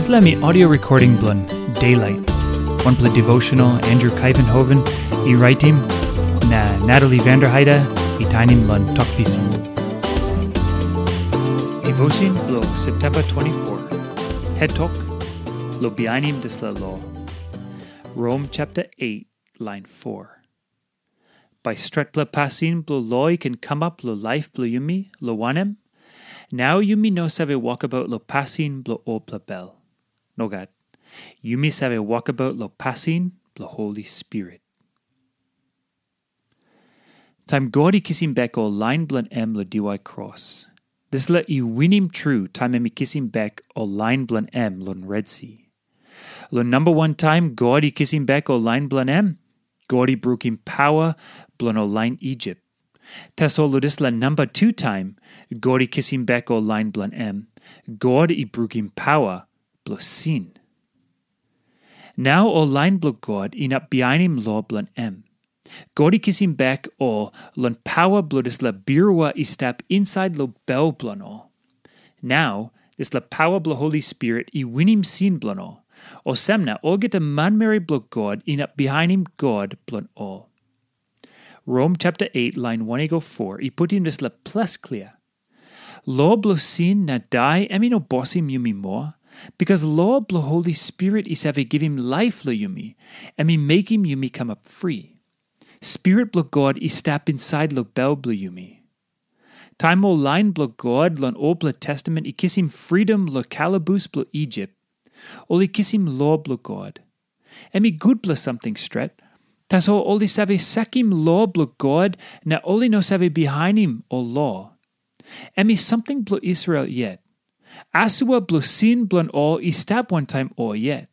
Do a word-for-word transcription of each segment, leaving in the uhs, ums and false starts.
Dispela mi audio recording bilong Daylight, wanpela devotional Andrew Kaivenhoven i raitim, na Natalie Vanderheide i tainim long Tok Pisin. Devotion bilong September twenty-four. Head Talk, lo bihainim dispela lo. Rom chapter eight, line four. Bai stretpela pasin bilong lo i ken kamap long laip bilong yumi, long wanem, nau yumi no save wokabaut long pasin bilong olpela bel. Nogat. Yumi save wokabaut long pasin bilong Holi Spirit. Taim God i kisim bek ol lain bilong em long diwai kros, dispela i winim tru taim em i kisim bek ol lain bilong em long Red Si. Long namba wan taim God i kisim bek ol lain bilong em, God i brukim paua bilong ol lain Isip. Tasol long dispela namba tu taim God i kisim bek ol lain bilong em, God i brukim paua bilong sin. Nau ol lain bilong God inap bihainim lo bilong em. God i kisim bek ol long paua bilong dispela birua i stap insait long bel bilong ol. Nau, dispela paua bilong Holi Spirit i winim sin bilong ol. Olsem na olgeta manmeri bilong God inap bihainim God bilong ol. Rom chapter eight, lain one i go four, i putim dispela ples klia. Lo bilong sin na dai em i no bosim yumi moa, bikas lo bilong Holi Spirit i save givim laip long yumi, em i mekim yumi kamap fri. Spirit bilong God i stap insait long bel bilong yumi. Taim ol lain bilong God long olpela testament i kisim fridom long kalabus bilong Isip, ol i kisim lo bilong God. Em i gutpela samting stret, tasol ol i save sakim lo bilong God na ol i no save bihainim ol lo. Em i samting bilong Israel yet. Asua bilong sin bilong ol i stap wantaim ol yet.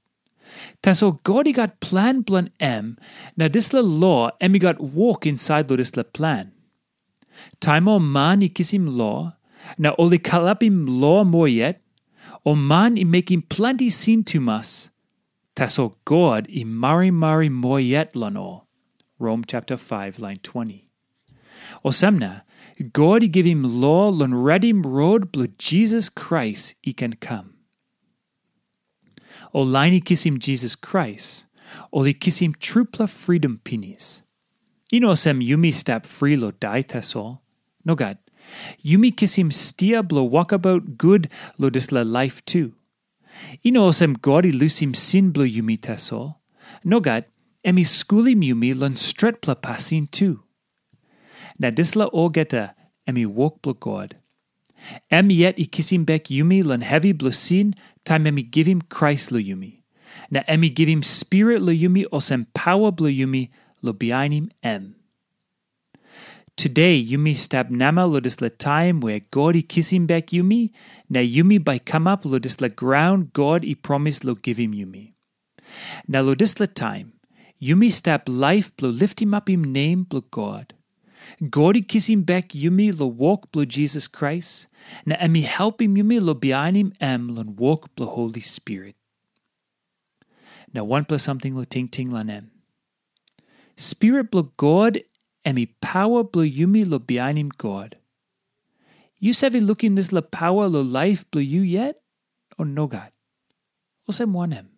Tasol God i gat plan bilong em, na dispela lo em i gat wok insait long dispela plan. Taim ol man i kisim lo, na ol i kalapim lo moa yet, ol man i mekim planti sin tumas, tasol God i marimari moa yet long ol. Rom chapter five, lain twenty. Olsem na, God i givim lo long redim rot bilong Jisas Krais i ken kam. Ol lain i kisim Jisas Krais, ol i kisim trupela fridom pinis. I no olsem yumi stap fri long dai tasol. Nogat. Yumi kisim stia bilong wokabaut gut long dispela laip tu. I no olsem God i lusim sin bilong yumi tasol. Nogat, em i skulim yumi long stretpela pasin tu. Na dispela olgeta em i wok bilong God. Em yet i kisim bek yumi long hevi bilong sin taim em i givim Krais long yumi. Na em i givim Spirit long yumi olsem paua bilong yumi long bihainim em. Tude yumi stap namel long dispela taim we God i kisim bek yumi, na yumi bai kamap long dispela graun God i promis long givim yumi. Na long dispela taim, yumi stap laip bilong litimapim nem bilong God. God i kisim bek yumi long wok bilong Jisas Krais, na em i helpim yumi long bihainim em long wok bilong Holi Spirit. Na wanpela samting long tingting long em. Spirit bilong God em i paua bilong yumi long bihainim God. Yu save lukim dispela paua long laip bilong yu yet, o nogat? Olsem wanem?